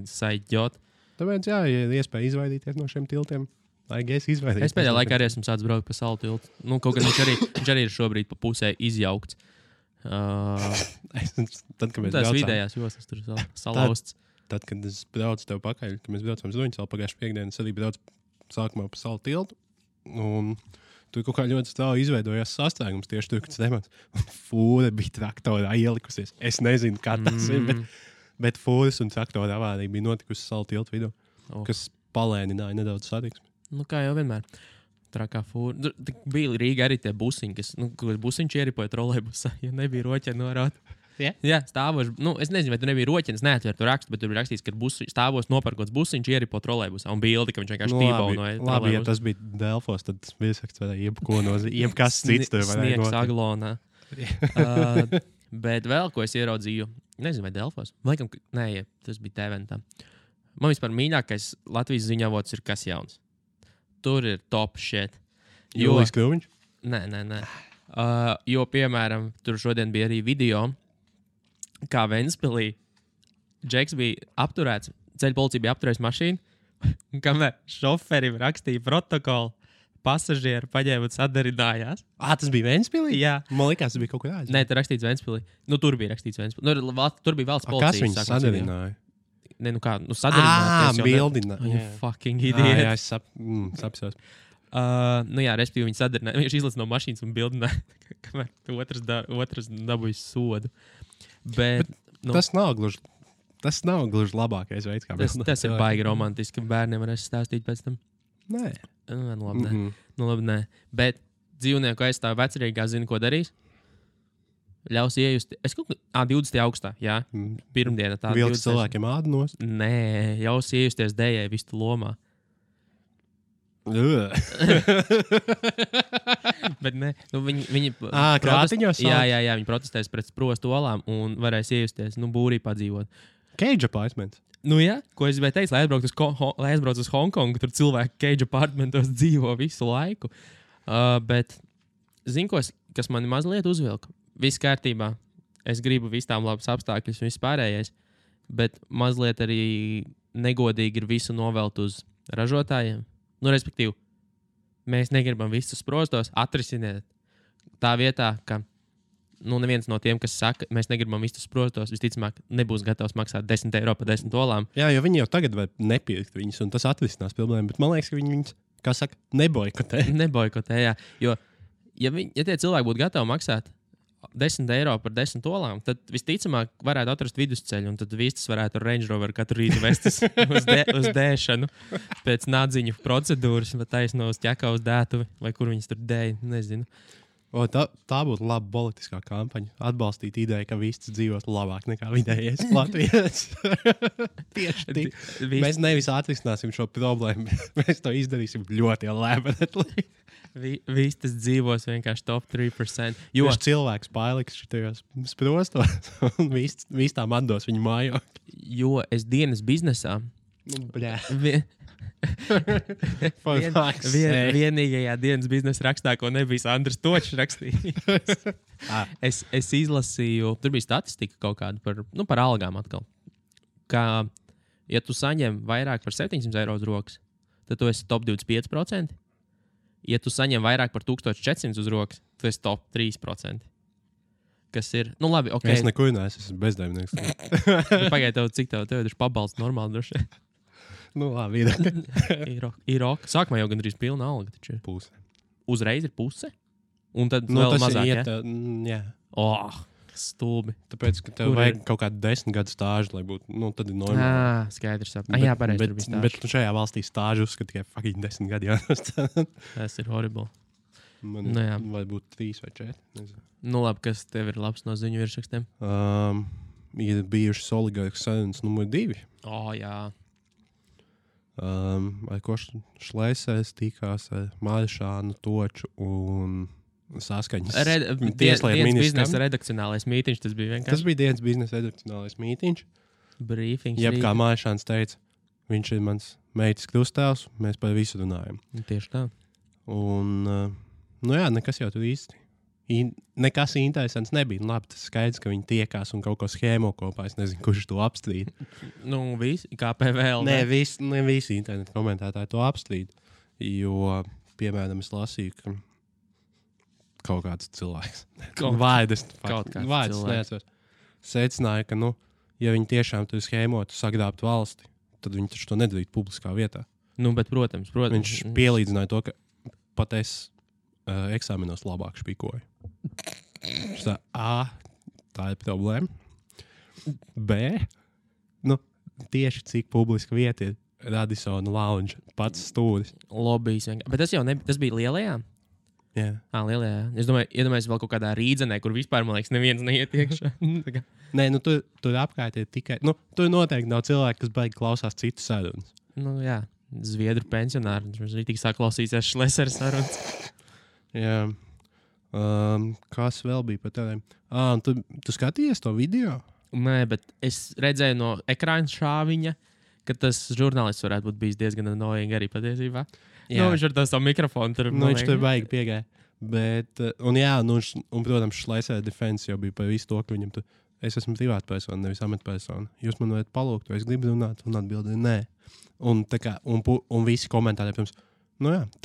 saidjot. Tāpēc, ja ir iespēja izvairīties no šiem tiltiem, es pēdējā laikā arī esmu sācis braukt pa salu tiltu. Kaut gan viņš arī ir šobrīd pa pusē izjaukts. Tad, kad mēs tās vidējās joslas tur salauzts. Tad, kad es braucu tev pakaļ, kad mēs braucam uz Ruņu salu pagājušajā piekdienā, es arī braucu sākumā pa salu tiltu. Un tur kaut kā ļoti strauji izveidojās sastrēgums tieši tur, kad es nemācu. Un fūra bija traktorā ielikusies. Es nezinu, kā tas ir, bet fūras un traktora avārija bija notikusi salu tiltu vidū, kas palēnināja nedaudz satiksmi. Kā jau vienmēr. Trakā fūra. Bija Rīga arī tie busiņi, kas busiņš ieripoja trolejbusā, ja nebija roķa norāta. Jā, stāvoši. Es nezinu, vai tu nebija roķinis, neatver tu rakstu, bet tur bija rakstīts, ka stāvos nopērkots busiņš ieripo trolejbusā un bildi, ka viņš vienkārši tībaunoja. Labi, ja tas bija Delfos, tad viesakts varēja jebkas cits tur varēja sniegs Aglonā. Bet vēl, ko es ieraudzīju, nezinu, vai Delfos. Laikam, tas bija Teventā. Man vispār mīļākais Latvijas ziņavots ir Kas jauns. Tur ir top shit. Jūlijs Kruviņš? Nē. Jo, piemēram, tur šodien bija arī video, kā Ventspilī Džeks bija apturēts, ceļu policija bija apturējusi mašīnu, un kamēr šoferim rakstīja protokolu, pasažieri paņēma un sadarinājās. Tas bija Ventspilī? Jā. Man liekas, tas bija kaut kur aizvien. Nē, tur rakstīts Ventspilī. Nu, tur bija rakstīts Ventspilī. Tur bija valsts policija. Kas viņus sadarināja? Nē, nu kā, sadarināties. Bildināja. Fucking idiot. Jā, es sapsos. Respektīvi, viņi sadarināja. Viņš izlaiž no mašīnas un bildināja, kamēr otrs dabūja sodu. Bet tas nav gluži labākais veids, kā tas ir baigi romantiski. Bērniem varēs stāstīt pēc tam. Nē. Labi, nē. Bet dzīvnieku aizstāv vecrīgā zina, ko darīs. Ļaus iejust. Es kaut kā 20. augustā, jā. Pirmdiena tā. Vilks cilvēkiem ādanos? Nē, ļaus iejusties dējai vistu lomā. Bet ne, viņi krātiņos? Jā, viņi protestēs pret sprostu olām un varēs iejusties, būrī padzīvot. Cage apartments. Jā, ko es gribēju teikt, lai aizbraucu uz Hongkongu, tur cilvēki cage apartmentos dzīvo visu laiku. Bet zinu, kas mani mazliet uzvilka. Viss kārtībā. Es gribu visām labas apstākļus un viss pārējais, bet mazliet arī negodīgi ir visu novelt uz ražotājiem. Respektīvi, mēs negribam visus sprostos, atrisiniet tā vietā, ka neviens no tiem, kas saka, mēs negribam visus sprostos, visticamāk, nebūs gatavs maksāt 10 eiro par 10 olām. Jā, jo viņi jau tagad var nepirkt viņus, un tas atrisinās problēmu. Bet man liekas, ka viņi viņus, kā saka, neboikotē. Neboikotē, jā. Jo, ja tie cilvēki būtu gatavi maksāt 10 eiro par 10 olām, tad visticamāk varētu atrast vidusceļu, un tad vistas varētu ar Range Rover katru rītu vestis uz dēšanu pēc nādziņu procedūras, vai taisno uz ķekā uz dētuvi, vai kur viņas tur dēja, nezinu. Tā būtu laba politiskā kampaņa. Atbalstīt ideju, ka vistas dzīvos labāk nekā vidējais Latvijas. Tieši tik. Mēs nevis atrisināsim šo problēmu, mēs to izdarīsim ļoti lēmeni. Vistas dzīvos vienkārši top 3%. Jo cilvēks paliks šitajos sprostos un vistām atdos viņu mājokli. Jo es dienas biznesā. Vienīgajā dienas biznesa rakstā, ko nebija Andris Točs rakstījis. es izlasīju, tur bija statistika kaut kāda par algām atkal. Kā, ja tu saņem vairāk par 700 eiro uz rokas, tad tu esi top 25%. Ja tu saņem vairāk par 1400 uz rokas, tu esi top 3%. Kas ir, labi, ok. Es neko neesmu, esmu bezdarbnieks. Pagaid, cik tev ir pabalsts normāli droši? Labi, ir ok. Sākumā jau gandrīz pilna alga taču. Puse. Uzreiz ir puse? Un tad vēl mazāk, jā? Stulbi. Tāpēc, ka tev vajag kaut kādu 10 gadu stāžu, lai būtu, tad ir normāli. Skaidrs. Jā, pareizi, tur bija stāžu. Bet šajā valstī stāžu uzskata tikai fucking 10 gadi jānostāda. Tas ir horrible. Man vai būtu 3 vai 4. Nezinu. Labi, kas tev ir labs no ziņu virsrakstiem? Ir bijušas oligarkas sarunas numur 2. Jā. Ar ko Šlēsers tikās ar Maršānu, Toču un saskaņas. Dienas biznesa redakcionālais mītiņš, tas bija vienkārši. Tas bija dienas biznesa redakcionālais mītiņš. Brīfings. Jeb kā Maršāns teica, viņš ir mans meitas krustāvs, mēs par visu runājam. Tieši tā. Un, nekas jau tur īsti. Nekas interesants nebija. Labi, tas skaidrs, ka viņi tiekās un kaut ko schēmo kopā. Es nezinu, kurš to apstrīd. Visi, kā PVL. Ne visi internetu komentētāji to apstrīd. Jo, piemēram, es lasīju, ka kaut kāds cilvēks. Vārds neatceros. Secināja, ka, ja viņi tiešām tur schēmotu sagrābt valsti, tad viņi taču to nedarītu publiskā vietā. Bet, protams. Viņš pielīdzināja to, ka pat es eksāmenos labāk špikoju. Tā ir problēma. B. Tieši cik publiska vieta ir Radissona Lounge, pats stūris. Lobbyis. Bet tas bija lielajā? Jā. Lielajā. Es domāju, iedomājos vēl kaut kādā rīdzenē, kur vispār, man liekas, neviens neiet iekšā. Nē, tur apkārt ir tikai, tur noteikti nav cilvēki, kas baigi klausās citu sarunas. Jā, Zviedru pensionāri. Viņš arī tik saklausīsies Šlēsers sarunas. Jā. Kas vēl bija par tādiem? Tu skatījies to video? Nē, bet es redzēju no ekrāna šāviņa, ka tas žurnālists varētu būt bijis diezgan annoying arī patiesībā. Viņš ar to savu mikrofonu tur. Viņš tur baigi piegāja. Bet, un protams, Šleisera defense jau bija par visu to, ka viņam tur, es esmu privāta persona, nevis amatpersona. Jūs man varat palūgt, vai es gribu runāt, un atbildēju, nē. Un visi komentāri, pirms,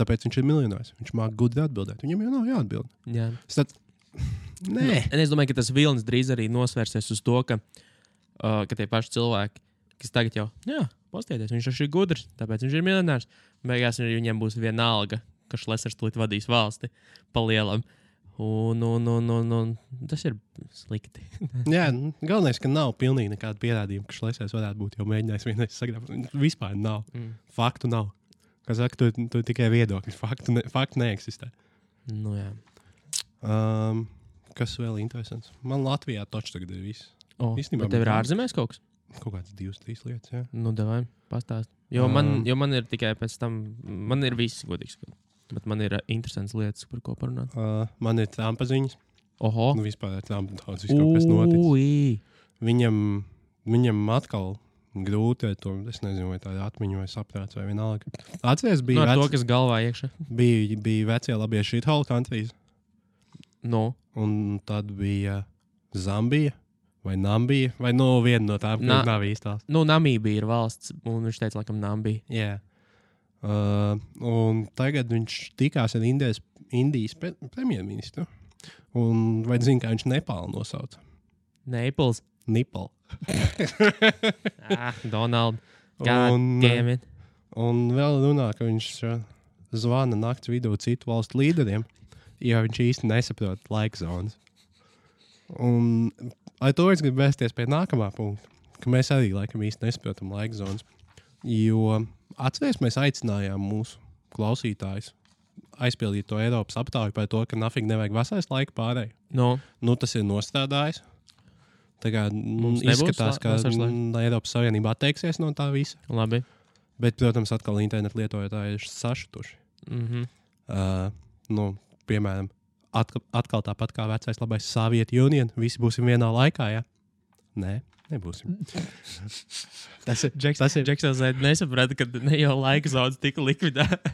tāpēc viņš ir miljonārs. Viņš māk gudri atbildēt. Viņam jau nav jāatbild. Jā. Nē. Es domāju, ka tas vilnis drīz arī nosvērsies uz to, ka tie paši cilvēki, kas tagad jau, pastieties, viņš ir gudrs, tāpēc viņš ir miljonārs. Beigās viņiem būs viena alga, ka Šlesers tūlīt vadīs valsti pa lielam. Un tas ir slikti. Jā, galvenais, ka nav pilnīgi nekāda pierādījuma, ka Šlesers varētu būt jau mēģinājis vienreiz sagrābt. Vispār nav. Faktu nav. Kā saka, tu tikai viedokļi. Faktu neeksistē. Nu jā. Kas vēl interesants? Man Latvijā taču tagad ir viss. Bet tev ir ārzemēs kaut kas? Kaut kāds 2-3 lietas, jā. Nu, davai, pastāst. Jo man ir tikai pēc tam, man ir viss godīgs, bet man ir interesants lietas, par ko parunāt. Man ir Trumpa ziņas. Oho. Nu, vispār ar Trumpu daudz viss kaut kas noticis. Viņam atkal grūti ar to, es nezinu, vai tā ir atmiņa vai saprāts vai vienalga. Atceries, bija to, kas galvā iekšā. Bija vecie labie shithole countries. No. Un tad bija Zambija. Vai Nambija, vai viena no tām, kas nav īstās. Namībija ir valsts, un viņš teica, laikam, Nambija. Jā. Un tagad viņš tikās ar Indijas premjerministru. Un vai zini, kā viņš Nepālu nosauca? Naples. Nipal. Donald. God, un vēl runā, ka viņš zvana nakts vidū citu valstu līderiem, jo viņš īsti nesaprot laika zonas. Un ar to es gribu vēsties pie nākamā punkta, ka mēs arī laikam īsti nesaprotam laika zonas. Jo atceries, mēs aicinājām mūsu klausītājus aizpildīt to Eiropas aptauju par to, ka nafīgi nevajag vasaras laika pārēju. Nu, tas ir nostrādājis. Tā kā izskatās, ka Eiropas Savienībā atteiksies no tā visa. Labi. Bet, protams, atkal internetu lietotāji ir sašutuši. Piemēram, atkal tāpat kā vecais labais Soviet Union, visi būsim vienā laikā, jā? Nē, nebūsim. Tas ir Džeksons nesaprata, ka ne jau laika zonas tika likvidēta.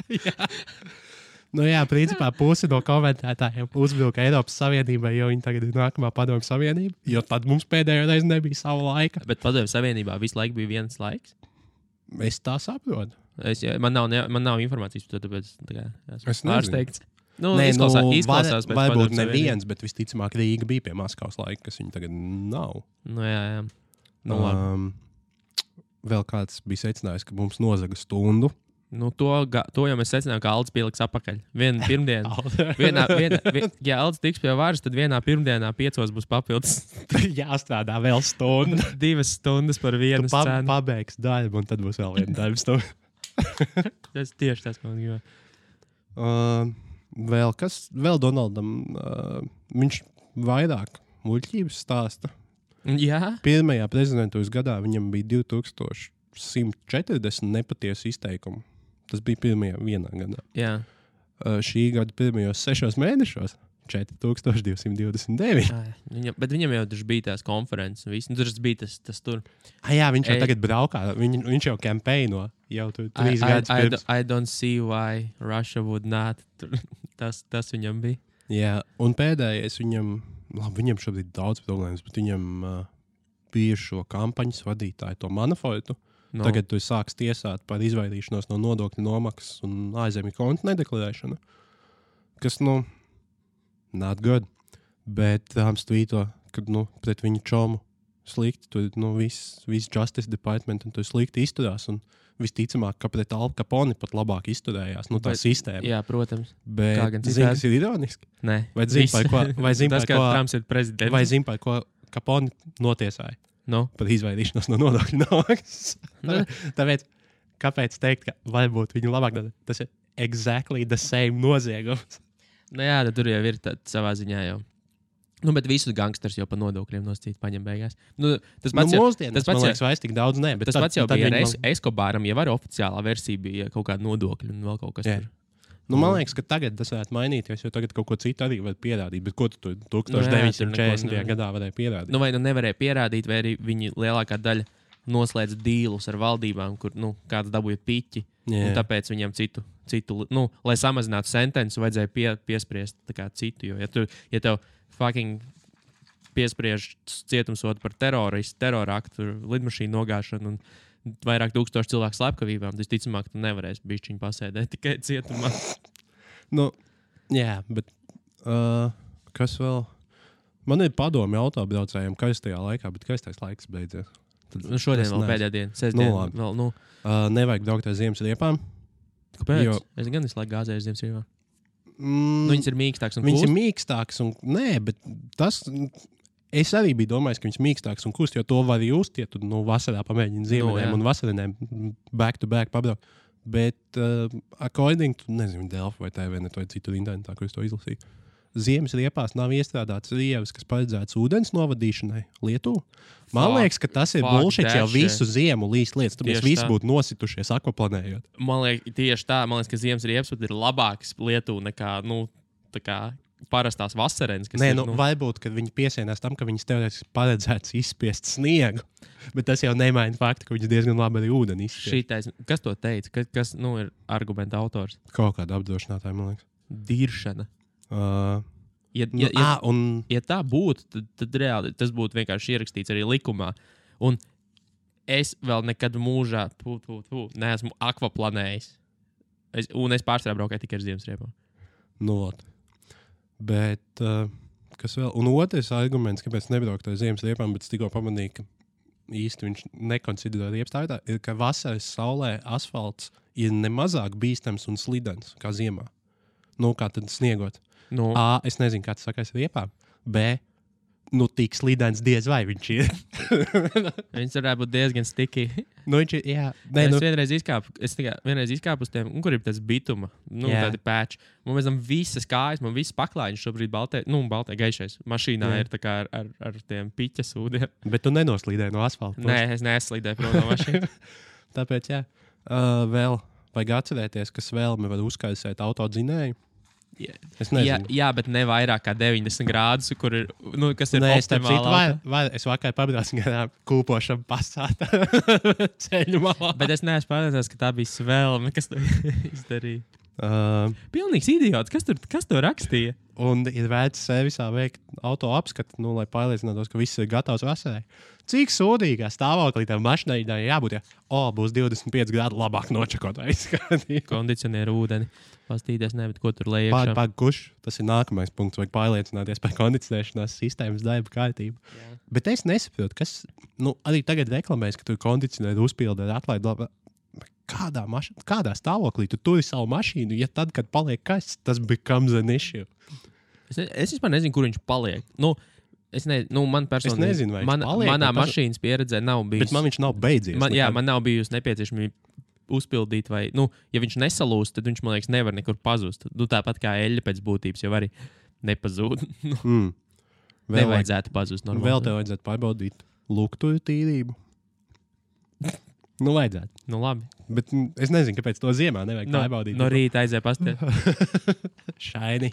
Jā. Principā pusi no komentētājiem uzvilka Eiropas Savienībai, jo viņi tagad ir nākamā Padomju Savienība, jo tad mums pēdējo reizi nebija sava laika. Bet Padomju Savienībā visu laiku bija viens laiks? Es tā saprotu. Man nav informācijas par to, tāpēc esmu pārsteigts. Izklausās pēc varbūt neviens, bet visticamāk Rīga bija pie Maskavas laika, kas viņa tagad nav. Jā. Vēl kāds bija secinājis, ka mums nozaga stundu. To jau mēs secinājām, ka Aldis pieliks apakaļ. Vienu pirmdienu. Ja Aldis tiks pie varas, tad vienā pirmdienā 5 būs papildus. Jāstrādā vēl stundu. 2 stundas par vienu scēnu. Pabeigs darbu, un tad būs vēl viena darba stunda. Tas tieši tas, ko man gribētu. Vēl Donaldam, viņš vairāk muļķības stāsta. Jā. Pirmajā prezidentūras gadā viņam bija 2140 nepatiesu izteikumu. Tas bija vienā gadā. Jā. Šī gada pirmajos 6 mēnešos 4229. Bet viņam jau bija tās konferences. Tur bija tas tur. Jā, viņš jau tagad braukā. Viņš jau kampaino. Jau tur 3 gadus pirms. I don't see why Russia would not. Tas viņam bija. Jā, un pēdējais viņam šobrīd daudz problēmas, bet viņam bija šo kampaņas vadītāju, to Manafortu. Tagad tu sāks tiesāt par izvairīšanos no nodokļu nomaksas un ārzemju kontu nedeklarēšanu. Kas, not good. Bet tvīto, ka, pret viņu čomu slikti, tur, viss Justice Department un tur slikti izturās, un visticamāk, ka pret Al Capone pat labāk izturējās, tā sistēma. Jā, protams. Bet zini, kas ir ironiski? Nē. Vai zini, par ko Capone notiesāja? Par izvairīšanos no nodokļu nomaksas. Tāpēc, kāpēc teikt, ka varbūt viņu labāk dara? Tas ir exactly the same noziegums. Jā, tad tur jau ir savā ziņā jau. Bet visus gangsters jau pa nodokļiem noscīt paņem beigās. Tas pats man liekas, vairs tik daudz ne. Tas pats jau bija ar Escobaram, jau arī oficiālā versija bija kaut kāda nodokļa un vēl kaut kas tur. Man liekas, ka tagad tas varētu mainīties, jo tagad kaut ko citu arī var pierādīt. Bet ko tu 1940. gadā varēja pierādīt? Vai nevarēja pierādīt, vai arī viņi lielākā daļa noslēdz dīlus ar valdībām, kur kāds dabūja piķi. Un tāpēc viņiem citu lai samazinātu sentenci, vajadzēja piespriest citu. Jo, ja tev fucking piespriež cietumsodu par teroraktu, lidmašīnu nogāšanu un vairāk 1000 cilvēku slepkavībām, tad ticamāk, tu nevarēsi bišķiņu pasēdēt tikai cietumā. Jā, bet kas vēl? Man ir padomi autobraucējiem kaistajā laikā, bet kaistais laiks beidzies. Šodien vēl pēdējā diena. Sestdien vēl, nevajag braukt ar ziemas riepām. Kāpēc? Es gan visu laiku gāzēju ziemas riepām. Viņas ir mīkstāks un kūst? Viņas ir mīkstāks un... Nē, bet tas... Es arī biju domājis, ka viņas mīkstāks un kūst, jo to var just, ja tu vasarā pamēģini ziemeļiem un vasarinēm back to back pabraukt. Bet according to, nezinu, Delfi vai TVNet vai citu internetā, kur es to izlasīju, ziemas riepās nav iestrādāts rievas, kas paredzēts ūdens novadīšanai Lietuvā. Man liekas, ka tas ir bullshit jau visu ziemu līst lietas. Tur mēs visi būtu nositušies akvaplanējot. Man liekas, tieši tā. Man liekas, ka ziemas riepas ir labāks Lietuvā nekā parastās vasarenes. Nē, varbūt, kad viņi piesienās tam, ka viņas teorētiski paredzēts izspiest sniegu. Bet tas jau nemaina faktu, ka viņas diezgan labi arī ūdeni izspiest. Kas to teica? Kas ir argumenta autors? Kaut kāda apdrošinātāja, man liekas. Diršana. Ja tā būtu, tad reāli tas būtu vienkārši ierakstīts arī likumā. Un es vēl nekad mūžā neesmu akvaplanējis. Un es pārsvarā braukāju tikai ar ziemas riepām. Bet kas vēl? Un otrs arguments, kāpēc nebraukt ar ziemas riepām, bet es tikko pamanīju, ka īsti viņš nekonsiderē riepas tā, ir, ka vasaras saulē asfalts ir nemazāk bīstams un slidens kā ziemā. Kā tad sniegot? A, es nezinu, kā tas sakās riepām. B, tik slidens diez vai viņš ir. Viņš varētu būt diezgan sticky. Viņš ir, jā. Es vienreiz izkāpu uz tiem, kur ir tas bituma, tādi pēči. Man pēc tam visas kājas, man visas paklājiņas šobrīd baltē gaišais. Mašīnā ir tā kā ar tiem piķas ūdiem. Bet tu nenoslīdēji no asfalta? Nē, es neslīdēju prom no mašīnas. Tāpēc, jā. Vēl vajag atcerēties, ka svelme var uzkaisēt autodzinēju. Jā, bet ne vairāk kā 90 grādus, kur ir, kas ir optimālā. Es vakar pabraucu garām kūpošam pasātā ceļu malā. Bet es neesmu pārliecināts, ka tā bija svelme, kas to izdarīja. Pilnīgs idiots. Kas to rakstīja? Un ir vērts servisā veikt auto apskatu, lai pārliecinātos, ka viss ir gatavs vasarai. Cik sūdīgā stāvoklī tam mašīnai jābūt, būs 25 grādi labāk nočakot aizskatīt. Kondicionieru ūdeni. Pastīties, bet ko tur lejā? Kurš? Tas ir nākamais punkts, vajag pārliecināties par kondicionēšanās sistēmas darba kārtību. Jā. Bet es nesaprotu, kas, arī tagad reklamēs, ka tur kondicionēru uzpilda ar atlaidu. Kādā stāvoklī tu turi savu mašīnu, ja tad, kad paliek kasts, tas becomes an issue? Es vispār nezinu, kur viņš paliek. Man personīgi, nezinu, vai viņš paliek. Manā mašīnas pieredzē nav bijis. Bet man viņš nav beidzies. Man nav bijusi nepieciešamība uzpildīt, vai, ja viņš nesalūst, tad viņš, man liekas, nevar nekur pazust. Tāpat kā eļļa pēc būtības jau arī nepazūd. Nevajadzētu pazust normāli. Vēl tev vajadzētu pārbaudīt luktuju tīrību. Vajadzētu. Labi. Bet es nezinu, kāpēc to ziemā nevajag pārbaudīt. No rīta aizēja pastēt. Šaini.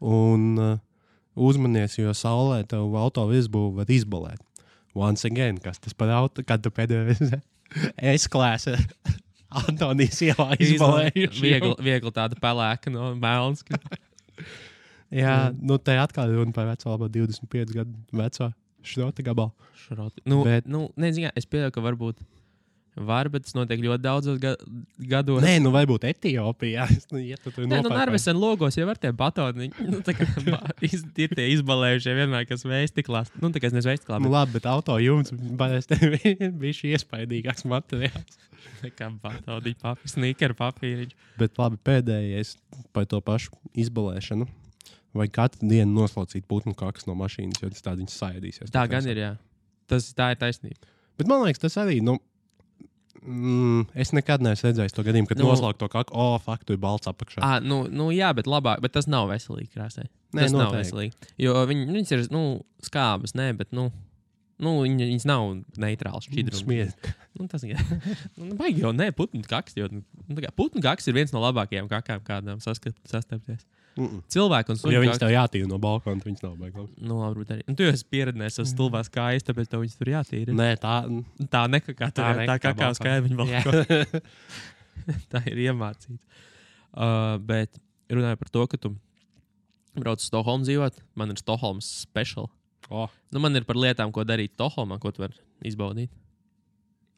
Un uzmanies, jo saulē tev auto virsbūvu var izbalēt. Once again, kas tas par auto, kad tu pēdējais S-klāsa Antonijas ielā izbalējuši. Viegli tāda pelēka no melns. Jā, te atkal runa par veco, labā 25 gadu veco šrota gabalu. Es pieļauju, ka bet tas notiek ļoti daudzos gados. Nē, varbūt Etiopijā. Narvesen logos jau ar tiem batoniņiem. Ir tie izbalējušie vienmēr, kas veistiklās. Tā kā es nezinu veistiklā. Labi, bet auto jums bija šī iespaidīgāks materiāls. Kā batoniņi, sneaker papīriņi. Bet labi, pēdējais par to pašu izbalēšanu. Vai katru dienu noslaucīt putnu kakas no mašīnas, jo tas tā viņas saēdīsies. Tā gan ir, jā. Tā ir taisnība. Bet man liekas, tas arī, es nekad neesmu redzējis to gadījumu, kad noslaukt to kaku, tu ir balts apakšā. Jā, bet labāk, bet tas nav veselīgi krāsai. Tas nav veselīgi. Jo viņas ir, skābas, bet, viņas nav neitrāls šķidrums. Smiet. Tas vajag jau, putnu kaks, jo putnu kaks ir viens no labākajām kakām, kādām sastapties. Cilvēki un suņi. Ja viņas tev jātīra no balkona, tad viņas nav baigās. Nu, varbūt arī. Un tu jau esi pieredzējis uz stulbās kājas, tāpēc tev viņas tur jātīra. Nē, tā nekakā tur, tā kakā uz kāja viņa balkona. Tā ir iemācīta. Bet runāju par to, ka tu brauc uz Stokholmu dzīvot. Man ir Stokholmas special. Nu, man ir par lietām, ko darīt Stokholmā, ko tu vari izbaudīt.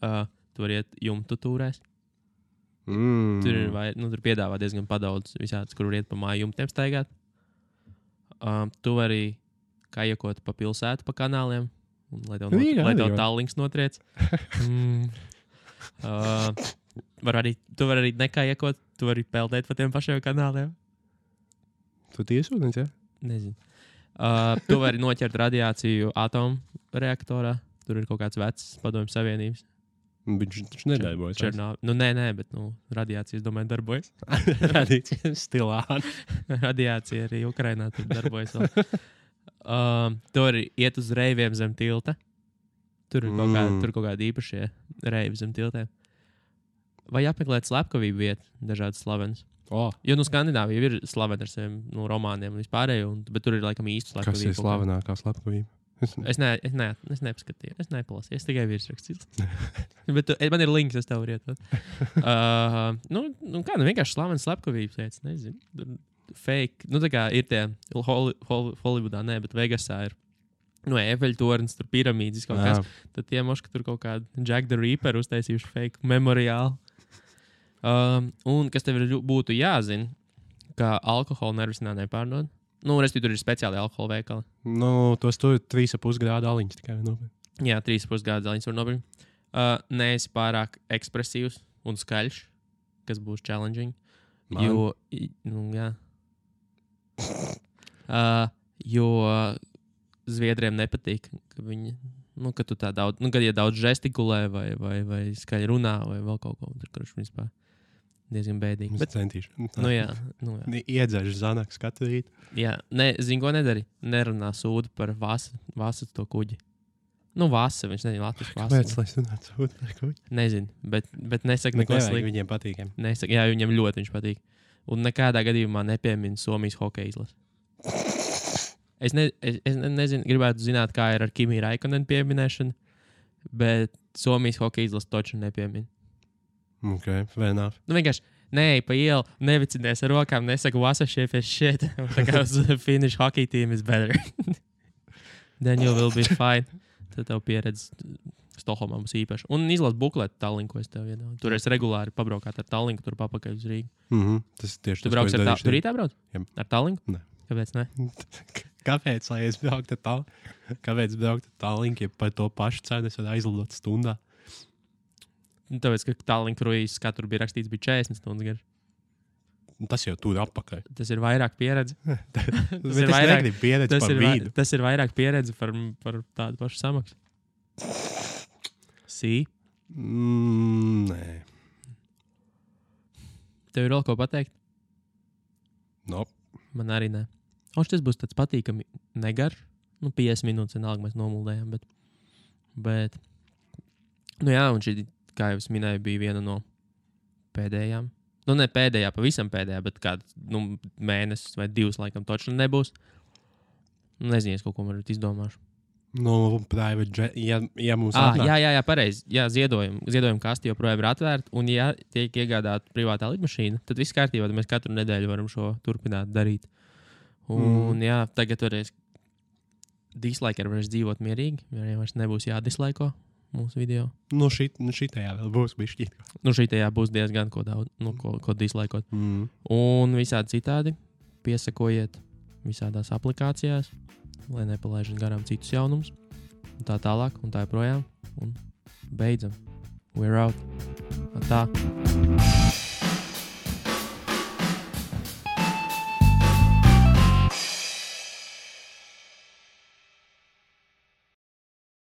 Tu vari iet jumtu tūrēs. Tur piedāvā diezgan padaudz visādas, kur var iet pa māju jumtiem staigāt. Tu vari kajekot pa pilsētu, pa kanāliem, un, lai tev tāllinks notriec. Tu vari arī nekajekot, tu vari peldēt pa tiem pašiem kanāliem. Tu tiesūdens, ja? Nezinu. Tu vari noķert radiāciju atomu reaktorā. Tur ir kaut kāds vecs padomju savienības. Viņš nedarbojas. Nē, bet radiācija, es domāju, darbojas. Radiācija stilā. Radiācija arī Ukrainā tur darbojas vēl. Tu arī iet uz reiviem zem tilta. Tur ir kaut kādi īpašie reivi zem tiltēm. Vai apmeklēt slepkavību vietu, dažādas slavenas. Jo Skandināvija ir slavena ar saviem romāniem un vispārējo, bet tur ir laikam īsti slepkavība. Kas ir slavenākā slepkavība? Es nepaskatīju, es nepalasīju, es tikai virsrakstīju. Bet man ir links, es tev varu ietot. Vienkārši slavenas slepkavības lietas, nezinu. Fake, tā kā ir tie Hollywoodā, bet Vegasā ir Eifeļtornis, tur piramīdas kaut kas. Tad tie moški tur kaut kādu Jack the Ripper uztaisījuši fake memoriālu. Un kas tev būtu jāzina, ka alkoholu nervisinā nepārdod. Tur ir speciāli alkohola veikali. Tos tur 3,5 grādu aliņas tikai nopirkt. Jā, 3,5 grādu aliņas var nopirkt. Neesi pārāk ekspresīvs un skaļš, kas būs challenging. Jo Zviedriem nepatīk, ka viņi, ka tu tā daudz, kad daudz žestikulē vai skaļi runā vai vēl kaut ko. Tur vispār diezgan bēdīgi. Bet centīšu. Jā. Iedzēšu zanaks katru rītu. Jā, zini, ko nedari? Nerunā sūdu par Vasa to kuģi. Vasa, viņš nezina latviešu Vasa. Kāpēc, lai runātu sūdu par kuģi? Nezinu, bet nesaka neko sliktu. Viņiem patīk. Jā, viņiem ļoti viņš patīk. Un nekādā gadījumā nepiemina Somijas hokeja izlasi. Es nezinu, gribētu zināt, kā ir ar Kimi Raikonen pieminēšanu, bet Somijas hokeja izlasi toču nepiemina. Ok, fair enough. Vienkārši neej pa ielu, nevicinies ar rokām, nesaka Vasa shit. Tā kā uz Finnish hockey team is better. Then you will be fine. Tad tev pieredze Stokholmā būs īpaša. Un izlas bukletu Tallinku, es tev iedodu. Tur es regulāri pabraukāt ar Tallinku, tur papakaļ uz Rīgu. Tas tieši tu brauks ar Tallinku? Tur rītā brauc? Jā. Ar Tallinku? Nē. Kāpēc ne? Kāpēc, lai es brauktu ar Tallinku? Kāpēc braukt ar Tallinku, ja par to pašu cenu es varu aizlidot stundā? Tāpēc, ka Tallink kruīzes katru bija rakstīts, bija 40 stundas garš. Tas jau tur apakaļ. Tas ir vairāk pieredze. Tas ir vairāk pieredze par vīdu. Tas ir vairāk pieredze par tādu pašu samaksu. Nē. Tev ir vēl ko pateikt? Man arī nē. Tas būs tāds patīkami negarš. 50 minūtes vienalga mēs nomuldējām, bet un šī, kā jau es minēju, bija viena no pēdējām. Ne pēdējā, pavisam pēdējā, bet kāds mēnesis vai 2 laikam točni nebūs. Nezinu, es kaut ko varbūt izdomāšu. Private jet, ja mums atnāk. Jā, pareizi. Jā, ziedojuma kasti joprojām ir atvērta, un ja tiek iegādāta privātā lidmašīna, tad viss kārtībā, tad mēs katru nedēļu varam šo turpināt darīt. Un tagad varēs dislaiker varēs dzīvot mierīgi, ja vairs nebūs jādislaiko mūsu video. Šitajā vēl būs bišķīt. Šitajā būs diezgan ko daudz, ko dislaikot. Un visādi citādi piesakojiet visādās aplikācijās, lai nepalaižam garām citus jaunumus. Un tā tālāk, un tā joprojām. Un beidzam. We're out. Tā.